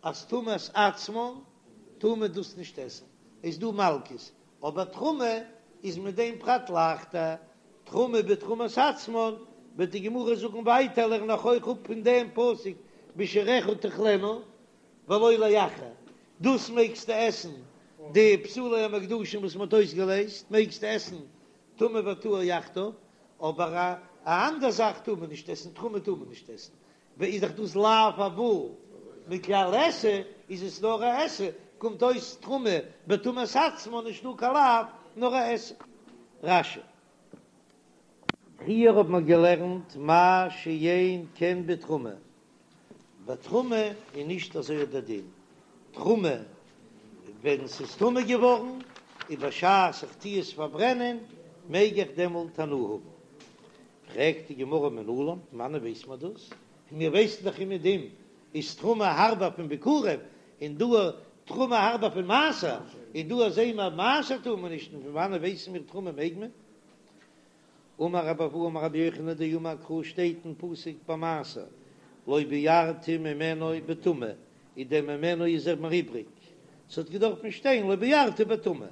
A: אז טומאת עצמן טאר מען דאס נישט עסן, איז דא מלקות, אבער תרומה איז מיט דעם פרט לייכטער, תרומה בתרומת עצמן, וועט די גמרא זאגן ווייטער לערן איך אויך אפ פון דעם פסוק בשעריך תאכלנה ולא לאחר, דאס מעגסטו עסן די פסולי המוקדשים וואס מען האט אויסגעלעזט מעגסטו עסן טמא וטהור יחדיו, אבער א א אנדער זאך טאר מען נישט עסן, תרומה טאר מען נישט עסן, איז דאך דאס לאו הבא מכלל עשה, איז עס נאר א עשה, קומט אויס תרומה בטומאת עצמה נישט דא קיין לאו נאר א עשה. רש"י. פריער האט מען געלערנט מה שאין כן בתרומה, ביי תרומה איז נישט אזוי דער דין, תרומה ווען ס'איז טמא געווארן איז בשעת איך טו עס פארברענען מעג איך דעמאלט הנאה האבן, פרעגט די גמרא מנלן, פון וואנען ווייסט מען דאס? און מיר ווייסן דאך אומעדום איז תרומה הארבער פון ביכורים, און דא תרומה הארבער פון מעשר, און דא זעהן מיר מעשר טאר מען נישט, און פון וואנען ווייסן מיר תרומה מעג מען? אמר רבי אבהו אמר רבי יוחנן דאמר קרא שטייט אין פסוק ביי מעשר לא בערתי ממנו בטומאה איז דער ממנו איז ער מיר איבריג ס'האט געדארפן שטיין לא בערתי בטומאה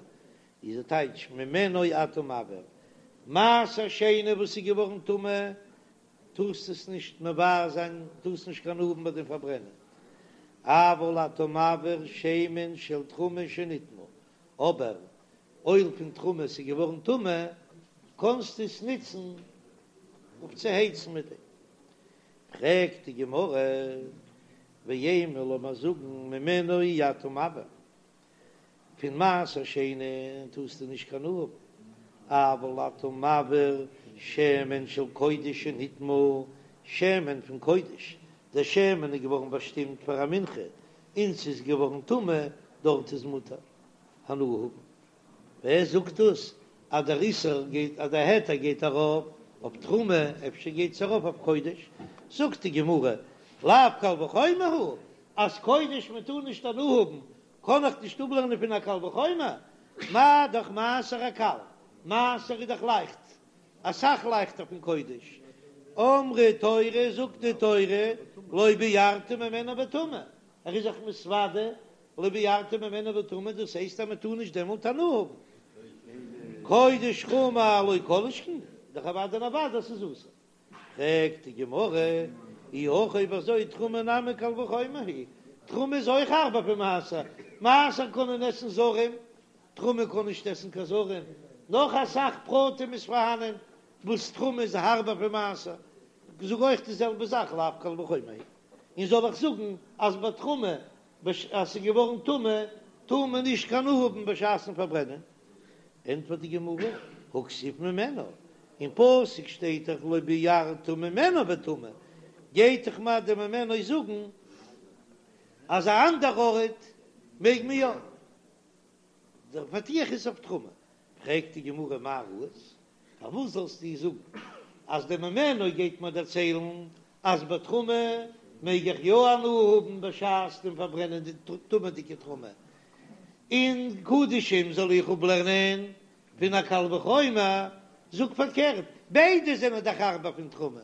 A: איז די טייטש ממנו אתה מבעיר מעשר שני וואס איז געווארן טמא טארסט עס נישט מבער זיין טארסט נישט קיין הנאה האבן ביי דעם פארברענען אבל אתה מבעיר שמן של תרומה שנטמא אבער אויל פון תרומה ס'איז געווארן טמא קענסטו עס ניצן אויף צו הייצן מיט דעם. פרעגט די גמרא, ואימא לאמיר זאגן ממנו אי אתה מבעיר, פון מעשר שני טארסטו נישט קיין הנאה האבן, אבל אתה מבעיר שמן של קודש שנטמא, שמן פון קודש, דער שמן איז געווארן באשטימט פאר א מנחה און ס'איז געווארן טמא, דארט איז מותר הנאה האבן. ווער זאגט דאס אז דער איסור גייט אז דער היתר גייט ארויף אויף תרומה, אפשר גייט עס ארויף אויף קודש? זאגט די גמרא, לאו קל וחומר הוא, אז קודש מען טאר נישט הנאה האבן, קען איך נישט אפלערנען פון א קל וחומר, מה דאך מעשר הקל, מעשר איז דאך לייכט, אסאך לייכטער פון קודש, אמרה תורה זאגט די תורה, לא בערתי ממנו בטומאה, ער איז זיך מתוודה לא בערתי ממנו בטומאה, דאס הייסט אז מען טאר נישט דעמאלט הנאה האבן. קודש חמור לא כל שכן, דאך אוודאי און אוודאי אז ס'איז אסור. פרעגט די גמרא, אי הכי אויב אזוי תרומה נמי קל וחומר היא, תרומה איז אויך הארבער פון מעשר, מעשר קענען עסן זרים, תרומה קען נישט עסן קיין זרים, נאך אסאך פרטים איז פארהאנען וואס תרומה איז הארבער פון מעשר, זאג אויך די זעלבע זאך לאו קל וחומר היא, און זאל איך זאגן אז ביי תרומה אז ס'איז געווארן טמא טאר מען נישט קיין הנאה האבן בשעת'ן פארברענען? ענטפערט די גמרא, הא כתיב ממנו, אין פסוק שטייט דאך לא בערת ממנו בטומאה, גייט דאך מיר די ממנו זאגן אז א אנדער ארט מעג מען יא. דער פתיח איז אויף תרומה, פרעגט די גמרא מאי ראית, פארוואס זאלסטו זאגן אז די ממנו גייט מיר דערציילן אז ביי תרומה מעג איך יא הנאה האבן בשעת דעם פארברענען די טמא'דיגע תרומה, און קדשים זאל איך אפלערנען פון א קל וחומר, זאג פארקערט, ביידע זענען דאך הארבער פון תרומה,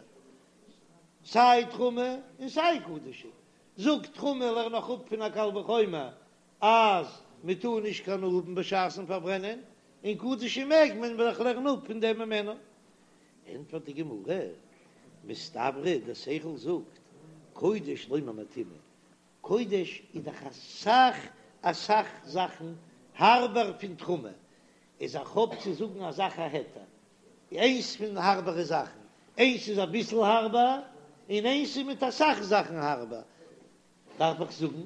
A: סיי תרומה און סיי קדשים, זאג תרומה לערן איך אפ פון א קל וחומר אז מען טאר נישט קיין הנאה האבן בשעת'ן פארברענען, און קדשים מעג מען ווייל איך לערן אפ פון דעם ממנו. ענטפערט די גמרא, מסתברא דער שכל זאגט, קודש לא ממעטינן, קודש איז דאך אסאך אסאך זאכן הארבער פון תרומה, איז איך האב צו זאגן א זאך א היתר, איינס פון הארבערע זאכן, איינס איז אביסל הארבער, און איינס איז מיט אסאך זאכן הארבער, דארף איך זאגן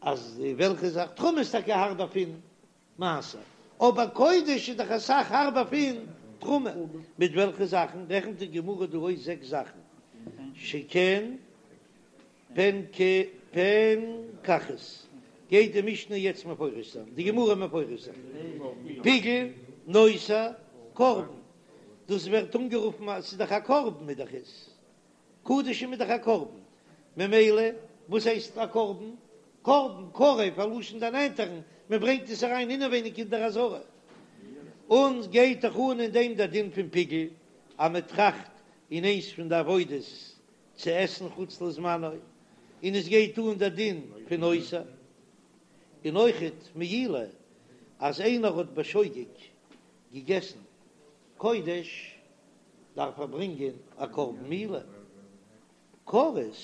A: אז וועלכע זאך תרומה איז טאקע הארבער פון מעשר, אבער קודש איז דאך אסאך הארבער פון תרומה, מיט וועלכע זאכן רעכנט די גמרא דא אויס זעקס זאכן, שכן פנקחית, גייט די משנה יעצט מפרש זיין, די גמרא מפרש זיין, פיגול, נותר, קרבן, דאס ווערט אנגערופן אז ס'איז דאך א קרבן איז דאך עס. קדשים איז דאך א קרבן, ממילא וואס הייסט א קרבן? קרבן, קרב, א לשון דערנענטערן, מען ברענגט עס אריין אינעווייניג אין דער עזרה. און גייט דאך אן אין דעם דער דין פון פיגול, אז מען טראכט אין איינס פון די עבודות צו עסן חוץ לזמנו, און עס גייט אן דער דין פון נותר, און אויכעט מעילה, אז איינער האט בשוגג געגעסן קודש, דארף ער ברענגען א קרבן מעילה. כרת,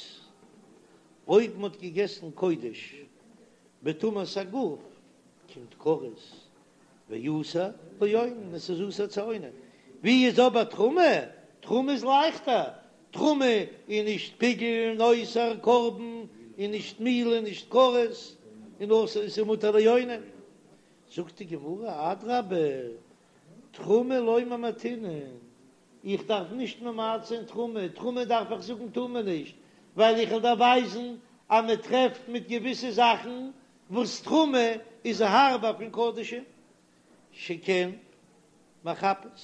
A: אויב מ'האט געגעסן קודש בטומאת הגוף קומט כרת ואסור לאונן, עס איז אסור צו אונן. ווי איז אבער תרומה? תרומה איז לייכטער, תרומה איז נישט פיגול, נותר, קרבן, און נישט מעילה, נישט כרת, און אסור, עס איז מותר לאונן. זאגט די גמרא, אדרבה, תרומה לא ממעטינן, איך דארף נישט ממעט זיין תרומה, תרומה דארף איך זאגן טאר מען נישט, ווייל איך וועל דיר ווייזן אז מען טרעפט מיט געוויסע זאכן וואס תרומה איז הארבער פון קדשים, שכן מחפת,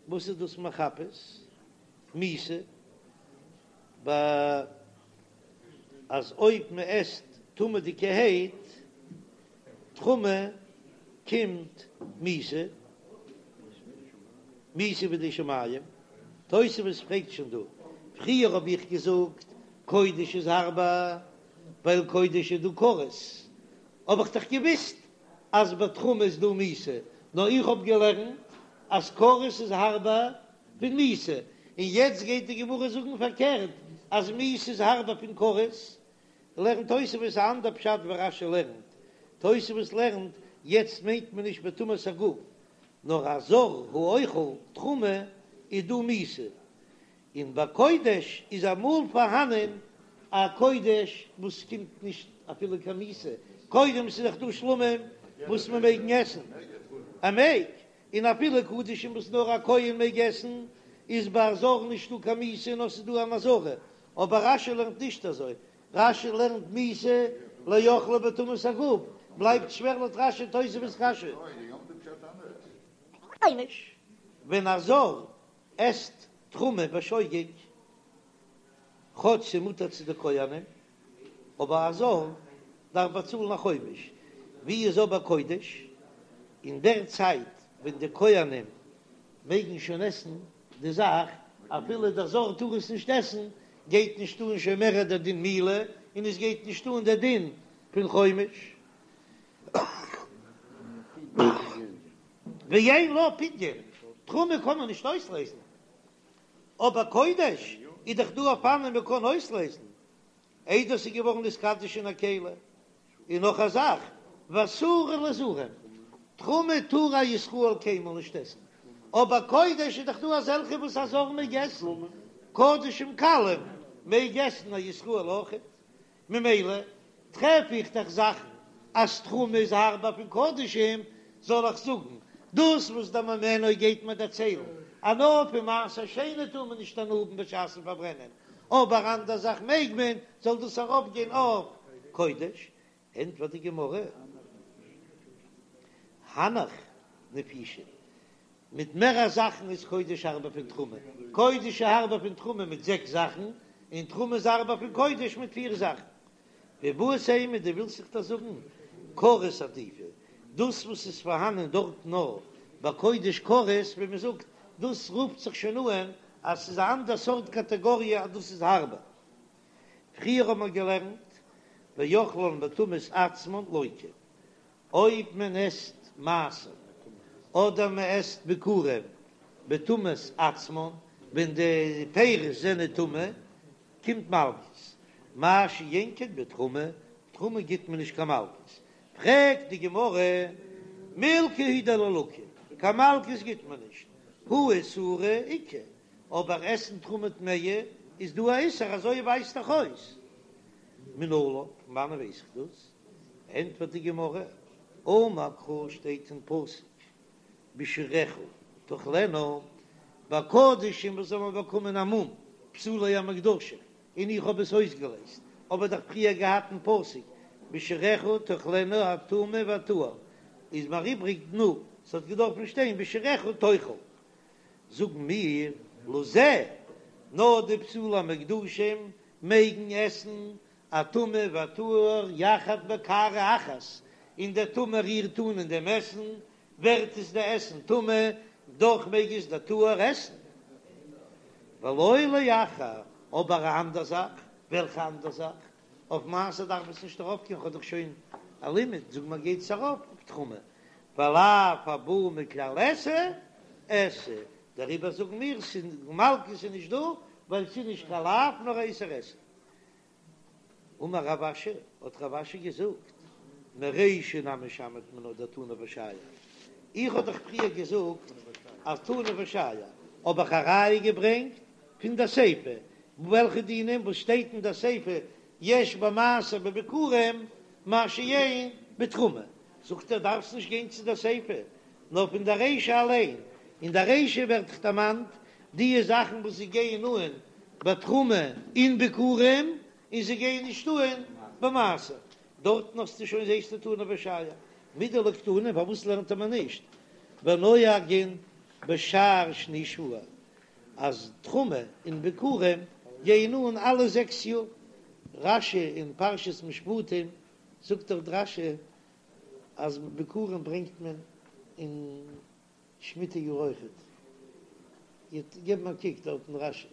A: וואס איז דאס מחפת? מיתה, ב אז אויב מען עסט טמא'דיגערהייט תרומה קומט מיתה, מיתה בידי שמים. תוספות פרעגט שוין דא, פריער האב איך געזאגט קודש איז הארבער ווייל קודש איז דא כרת, האב איך דאך געוויסט אז ביי תרומה איז דא מיתה, נאר איך האב געלערנט אז כרת איז הארבער פון מיתה, און יעצט גייט די גמרא זאגן פארקערט אז מיתה איז הארבער פון כרת, לערנט תוספות א אנדער פשט ווי רש"י לערנט, תוספות לערנט יעצט מיינט מען נישט בטומאת הגוף, נאר א זר האוכל תרומה איז דא מיתה, און ביי קודש איז אמאל פארהאנען א קודש וואס קומט נישט אפילו קיין מיתה, קודם ס'איז דאך דא שלמים וואס מען מעגן עסן, ער מעג, און אפילו קדשים וואס נאר א כהן מעג עסן, איז ביי א זר נישטא קיין מיתה נאר ס'איז דא אן אזהרה, אבער רש"י לערנט נישט אזוי, רש"י לערנט מיתה לאוכלה בטומאת הגוף, בלייבט שווער לויט רש"י תוספות קשיא. ווען א זר עסט תרומה בשוגג, כאטש ס'מותר צו די כהנים, אבער א זר דארף באצאלן א חומש, ווי איז אבער קודש? אין דער צייט ווען די כהנים מעגן שוין עסן די זאך, אפילו דער זר טאר עס נישט עסן, גייט נישט אן שוין מער דער דין מילה, און עס גייט נישט אן דער דין פון חומש. ואין לה פדיון, תרומה קען מען נישט אויסלעזן, אבער קודש איז דאך דא אופנים מען קען אויסלעזן, איידער ס'איז געווארן נתקדש אין א כלי, און נאך א זאך, ואסורה לזרים, תרומה טאר א ישראל קיינמאל נישט עסן, אבער קודש איז דאך דא אזעלכע וואס א זר מעג עסן, קדשים קלים מעג עסן א ישראל אויכעט, ממילא טרעף איך דאך זאכן אז תרומה איז הארבער פון קדשים, זאל איך זאגן דאס וואס דער ממנו גייט מיר דערציילן אז נאר פון מעשר שני טאר מען נישט הנאה האבן בשעת'ן פארברענען, אבער אנדער זאך מעג מען, זאל דאס ארויפגיין אויף קודש? ענטפערט די גמרא, הנך נפישי, מיט מערער זאכן איז קודש הארבער פון תרומה, קודש איז הארבער פון תרומה מיט זעקס זאכן, און תרומה איז הארבער פון קודש מיט פיר זאכן. ואיבעית אימא, דו ווילסט זיך דאס זאגן, כרת עדיפא, דאס וואס איז פארהאנען דארט נאר ביי קודש כרת, ווי מען זאגט, דאס רופט זיך שוין אן אז ס'איז א אנדער סארט קאטעגאריע אז דאס איז הארבער. פריער האט מען געלערנט ואוכלן בטומאת עצמן לוקה, אויב מען עסט מעשר אדער מען עסט ביכורים בטומאת עצמן, ווען די פירות זענען טמא, קומט מלקות, מה שאין כן בתרומה, תרומה גיט מען נישט קיין מלקות, פרעגט די גמרא, מילקא הוא דלא לקו, קיין מלקות גיט מען נישט, הא איסורא איכא, אבער עסן תרומה טמאה איז דא א איסור, אזוי ווייזט דאך אויס, מנלן, פון וואנען ווייס איך דאס? ענטפערט די גמרא, אמר קרא שטייט אין פסוק בשעריך תאכלנה, ביי קדשים וואס האבן באקומען א מום, פסולי המוקדשים, און איך האב עס אויסגעלייזט, האב איך דאך פריער געהאט אין פסוק בשעריך תאכלנה הטמא והטהור, איז מיר איבריג תנו, ס'האט געדארפן שטיין בשעריך תאכל. זאגן מיר לזה, נאר די פסולי המוקדשים מעגן עסן הטמא והטהור יחד בקערה אחת, און דער טמא רירט אן אין דעם עסן, ווערט עס די עסן טמא, דאך מעג עס דער טהור עסן. ולא לאחר, אבער א אנדער זאך, וועלכע אנדער זאך? אויף מעשר דארף עס נישט ארויפגיין, כ'האב דאך שוין א לימוד, זאג מיר גייט עס ארויף אויף תרומה, ולאו הבא מכלל עשה, עשה, דעריבער זאגן מיר ס'איז מלקות איז נישט דא, ווייל ס'איז נישט קיין לאו נאר א איסור עשה. אמר רב אשי, האט רב אשי געזאגט, מרישא נמי שמעת מינה דתנא ושייר, איך האב דאך פריער געזאגט אז תנא ושייר, האב איך א ראיה געברענגט פון די סיפא, וועלכע דינים וואס שטייט אין די סיפא יש במעשר בביכורים מה שאין בתרומה, זאגט ער דארפסט נישט גיין צו די סיפא, נאר פון די רישא אליין, אין די רישא ווערט דאך דערמאנט די זאכן וואס זיי גייען אן בתרומה און ביכורים, און זיי גייען נישט אן במעשר, דארטן האסטו שוין זעסטו תנא ושייר, מדלא קתני פארוואס לערנט מען נישט ונוהגין בשאר שני שבוע אז תרומה און ביכורים גייען אן אלע זעקס יאר, רש"י אין פרשת משפטים זאגט דאך רש"י אז ביכורים ברענגט מען אין שמיטה יאר אויכעט. איר געבן א קוק דארט אין רשי.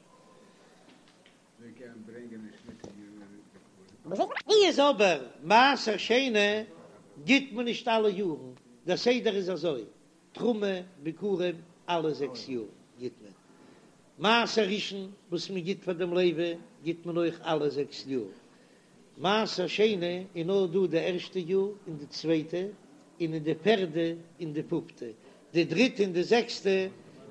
A: ווי איז אבער מעשר שני גיט מען נישט אלע יארן, דער סדר איז אזוי, תרומה, ביכורים, אלע זעקס יאר גיט מען, מעשר ראשון וואס מען גיט פאר דעם לוי גיט מען אויך אלע זעקס יאר, מעשר שני איז נאר דא די ערשטע יאר און די צווייטע און אין די פערדע און די פופטע, די דריטע און די זעקסטע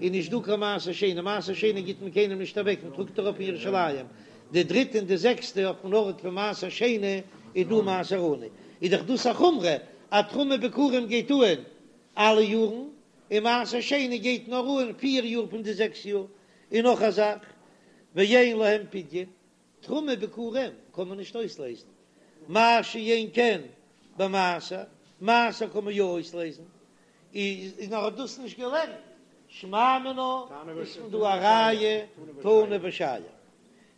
A: איז נישט דא קיין מעשר שני, מעשר שני גיט מען קיינעם נישט אוועק, מען טראגט ארויף אין ירושלים, די דריטע און די זעקסטע אויפן ארט פון מעשר שני איז דא מעשר עני, איז דאך דאס א חומרא אז תרומה ביכורים גייט אהן אלע יארן, און מעשר שני גייט נאר אהן פיר יאר פון די זעקס יאר, און נאך א זאך, ואין להם פדיון, תרומה ביכורים קען מען נישט אויסלעזן, מה שאין כן במעשר, מעשר קען מען יא אויסלעזן, איז נאר האט דאס נישט געלערנט, שמע מינה איז פון דא א ראיה תנא ושייר.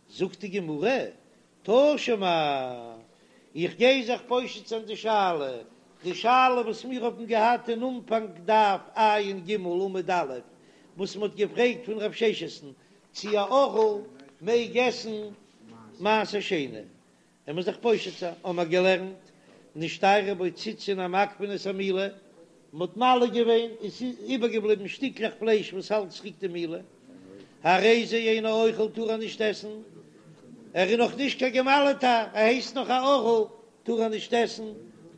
A: זאגט די גמרא, תא שמע, איך גיי זיך פושט זיין די שאלה, די שאלה וואס מיר האבן געהאט אין אנפאנג דף ע"ג עמוד א', וואס מען האט געפרעגט פון רב ששת'ן צי א ערל מעג עסן מעשר שני, ער מוז זיך פושט זיין, האבן מיר געלערנט, נשתיירו בו ציצין המעכבין את המילה, מען האט מל געווען און ס'איז איבערגעבליבן שטיקלעך פלייש וואס האלט צוריק די מילה, הרי זה אינו אוכל טאר ער נישט עסן, ער איז נאך נישט קיין געמל'טער, ער הייסט נאך א ערל, טאר ער נישט עסן,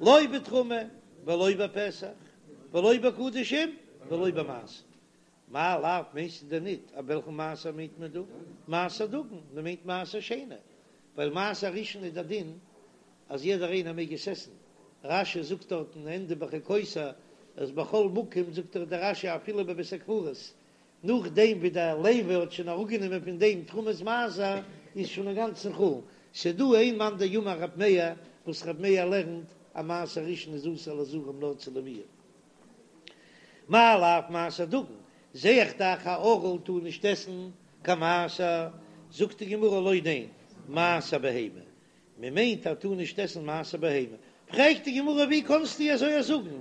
A: לא בתרומה ולא בפסח ולא בקדשים ולא במעשר. מאי לאו מיינסטו דען ניט אז וועלכן מעשר מיינט מען דא? מעשר דגן, מען מיינט מעשר שני, ווייל מעשר ראשון איז דער דין אז יעדער איינער מעג עס עסן, רש"י זאגט דארט אין ענדע בחוקותי אז בכל מקום זאגט דאך דער רש"י אפילו בבית הקברות, נאכדעם ווי דער לוי האט שוין אראפגענומען פון דעם תרומת מעשר איז שוין אינגאנצן חולין, ס'דא איין מאן דאמר רב מאיר וואס רב מאיר לערנט אז מעשר ראשון איז אסור לזרים נאר צו לוויים. מאי לאו מעשר דגן, זע איך דאך א ערל טאר נישט עסן קיין מעשר, זאגט די גמרא לא ניין, מעשר בהמה, מען מיינט ער טאר נישט עסן מעשר בהמה, פרעגט די גמרא ווי קאנסטו אזוי זאגן,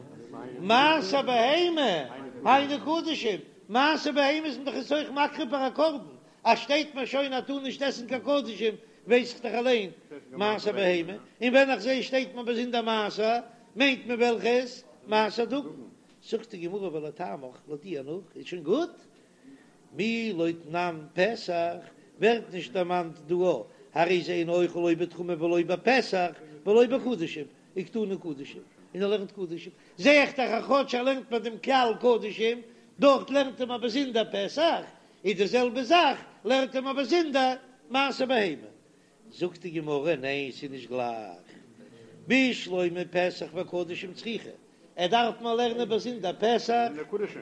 A: מעשר בהמה היינו קדשים, מעשר בהמה איז מען דאך עס אויך מקריב פאר א קרבן, אז שטייט מיר שוין ער טאר נישט עסן קיין קדשים ווייס איך דאך אליין מעשר בהמה, און ווען איך זע שטייט מיר באזונדער מעשר מיינט מען וועלכעס מעשר דגן, זאגט די גמרא ולטעמיך לויט דיר נאך איז שוין גוט, מי לא תנן פסח ווערט נישט דערמאנט דא הרי זה אינו אוכל לא בתרומה ולא בפסח ולא בקדשים, וקתני קדשים, און ער לערנט קדשים, זע איך דאך אז כאטש ער לערנט ביי דעם כלל קדשים, דארט לערנט ער מיר באזונדער פסח, איז די זעלבע זאך לערנט ער מיר באזונדער מעשר בהמה. זאגט די גמרא, ניין ס'איז נישט גלייך, בשלמא פסח וקדשים צריכא, ער דארף מיר לערנען באזונדער פסח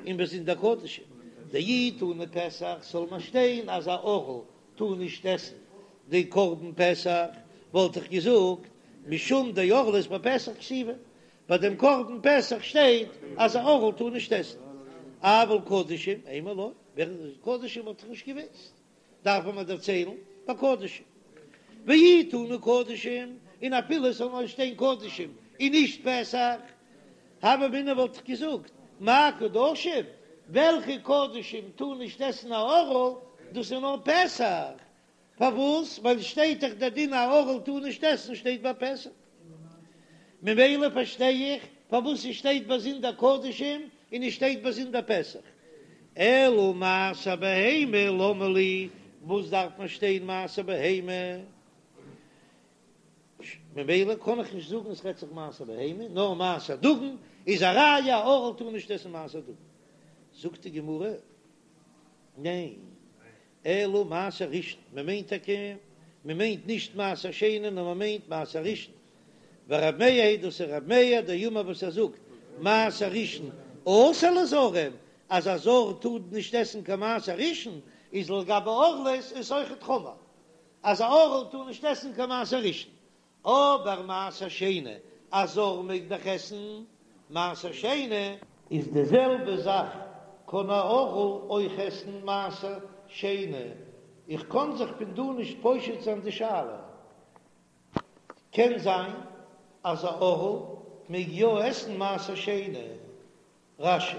A: און באזונדער קדשים, דאי תנא פסח זאל מיר שטיין אז א ערל טאר נישט עסן די קרבן פסח, וואלט איך געזאגט משום דערלות בפסח כתיבא, ביי דעם קרבן פסח שטייט אז א ערל טאר נישט עסן, אבל קדשים אימא לא, קדשים וואלט איך נישט געוואוסט. דארף מען דערציילן ביי קדשים, ואי תנא קדשים, און אפילו עס זאל נאר שטיין קדשים און נישט פסח, הוה אמינא וואלט איך געזאגט, מאי קדשים, וועלכע קדשים טאר נישט עסן א ערל, דאס איז נאר פסח, פארוואס? ווייל שטייט דאך דער דין א ערל טאר נישט עסן שטייט ביי פסח, ממילא פארשטיי איך פארוואס עס שטייט באזונדער קדשים און עס שטייט באזונדער פסח. אלא מעשר בהמה למה לי, וואס דארף מען שטיין מעשר בהמה? ממילא קען איך נישט זאגן עס רעדט זיך מעשר בהמה, נאר מעשר דגן איז א ראיה א ערל טאר נישט עסן מעשר דגן. זאגט די גמרא, ניין, אלא מעשר ראשון, מען מיינט טאקע, מען מיינט נישט מעשר שני נאר מען מיינט מעשר ראשון, ורב מאיר היא דאס איז רב מאיר דאמר וואס ער זאגט מעשר ראשון אסור לזרים, אז א זר טאר נישט עסן קיין מעשר ראשון, איז לגבי ערלות איז אויכעט חמור אז א ערל טאר נישט עסן קיין מעשר ראשון, אבער מעשר שני, א זר מעג דאך עסן מעשר שני. איז די זעלבע זאך קען א ערל אויך עסן מעשר שני, איך קען זיך פון דא נישט פושט זיין די שאלה, קען זיין אז א ערל מעג יא עסן מעשר שני, רש"י.